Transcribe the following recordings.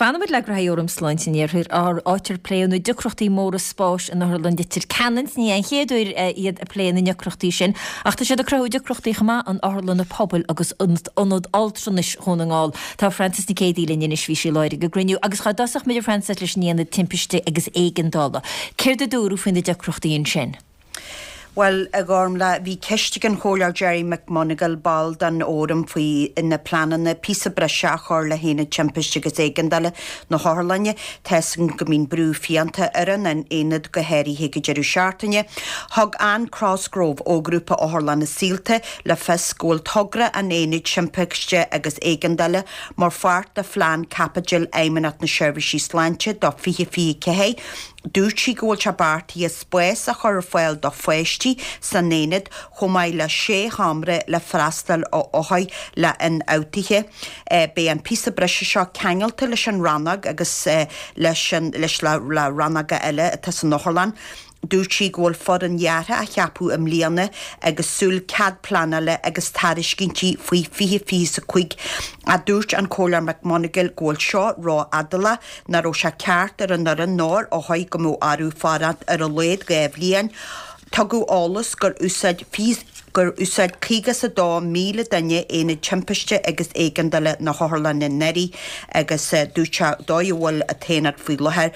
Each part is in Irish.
Fanfaimid le graithí Fhóram Sláinte an Iarthair, áit ar pléadh na deacrachtaí móra spáis in Otharlann Leitir Ceanainn. Ní an chéad uair iad ag plé na ndeacrachtaí sin, ach tá siad ag cruthú deacrachtaí chomh maith in otharlanna pobail agus in Ionad Altranais Dhún na nGall. Tá Frances Nic Géadaigh linn anois, bhí sí i láthair ag an gcruinniú. Agus dhá dtosódh muid, a Frances, leis an Aonad Timpiste agus Éigeandála. Céard a dúradh faoi na deacrachtaí ansin? Bhuel, a Ghormfhlaith, bhí ceist ag an Chomhairleoir Gerry McMonagall, ball den Fhóram, faoi na pleananna píosa breise a chur le hAonad Timpiste agus Éigeandála na hOtharlainne. Tá 'fhios againn go mbíonn brú fiánta ar an aonad, go háirithe ag an deireadh seachtaine. Thug Anne Crosgrove ó Ghrúpa Otharlanna Saolta le fios go bhfuil togra an Aonaid Timpiste agus Éigeandála mar pháirt de phlean caipitil Fheidhmeannacht na Seirbhíse Sláinte do 2024. Dúirt sí go bhfuil sé beartaithe spás a chur ar fáil do pháistí san aonad chomh maith le sé sheomra le freastal ar othair le ionfhabhtuithe. Beidh an píosa breise seo ceangailte leis an rannóg agus leis an leis le rannóga eile atá san otharlann. Dúirt sí go bhfuil foireann dheartha á cheapadh i mbliana agus súil cead pleanála agus tairiscintí faoi 2025 ach dúirt an Comhairleoir McMonagall go bhfuil seo ró-fhadálach, nach raibh sé ceart ar an fhoireann ná ar othair go mbeadh orthu fanacht ar a laghad 2 bhliain. Tugadh eolas gur úsáid gur úsáid 52,000 duine Aonad Timpiste agus Éigeandála na hOtharlainne anuraidh agus dúirt sé dóigh a bhfuil an t-aonad faoi láthair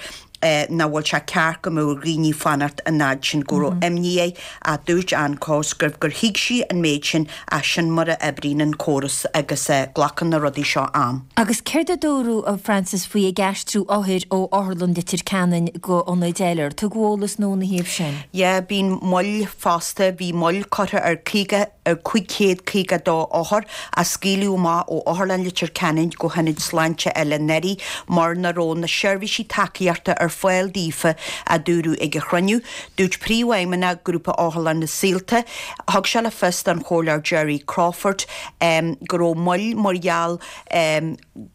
nach bhfuil sé ceart go mbeadh ar dhaoine fanacht an fhad sin, go raibh imní air ach dúirt Anne Cosgrove gur thuig sí an méid sin ach sin mar a oibríonn an córas agus glacann na rudaí seo am. Agus céard a dúradh, a Frances, faoi ag aistriú othair ó Otharlann Leitir Ceanainn go ionaid eile? Ar tugadh eolas nua ina thaobh sin? Yeah, bíonn moill fosta, bhí moill curtha ar 50, ar 552 othar a scaoileadh amach ó Otharlann Leitir Ceanainn go hionaid sláinte eile anuraidh mar nach raibh na seirbhísí tacaíochta ar fáil daofa, a dúradh ag an chruinniú. Dúirt Príomhfheidhmeannach Grúpa Otharlanna Saolta, thug sé le fios don Chomhairleoir Gerry Crawford go raibh moill mar gheall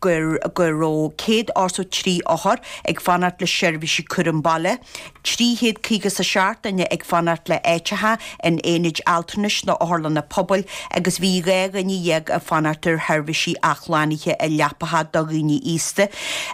gur go raibh 183 othar ag fanacht le seirbhísí cúram baile, 357 duine ag fanacht le áiteacha in aonaid altranais nó otharlanna pobail agus bhí 12 dhuine ag fanacht ar sheirbhísí athshlánaithe i leapacha do dhaoine aosta.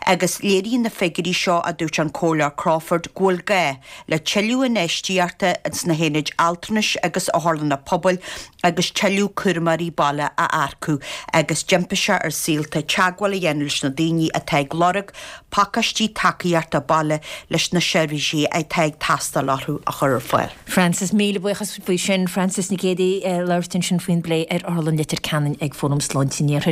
Agus léiríonn na figiúirí seo, a dúirt an Comhairleoir Crawford, go bhfuil gá le tuilleadh infheistíochta sna haonaid altranais agus otharlanna pobail agus tuilleadh cúramóirí baile a earcú agus d'impigh sé ar Saolta teagmháil a dhéanamh leis na daoine atá ag lorg pacáistí tacaíochta baile leis na seirbhísí atá ag teastáil orthu a chur ar fáil. Frances, Míle buíochas faoi sin. Frances Nic Géadaigh ag labhairt ansin faoin bplé ar Otharlann Leitir Ceanainn ag Fóram Sláinte an Iarthair.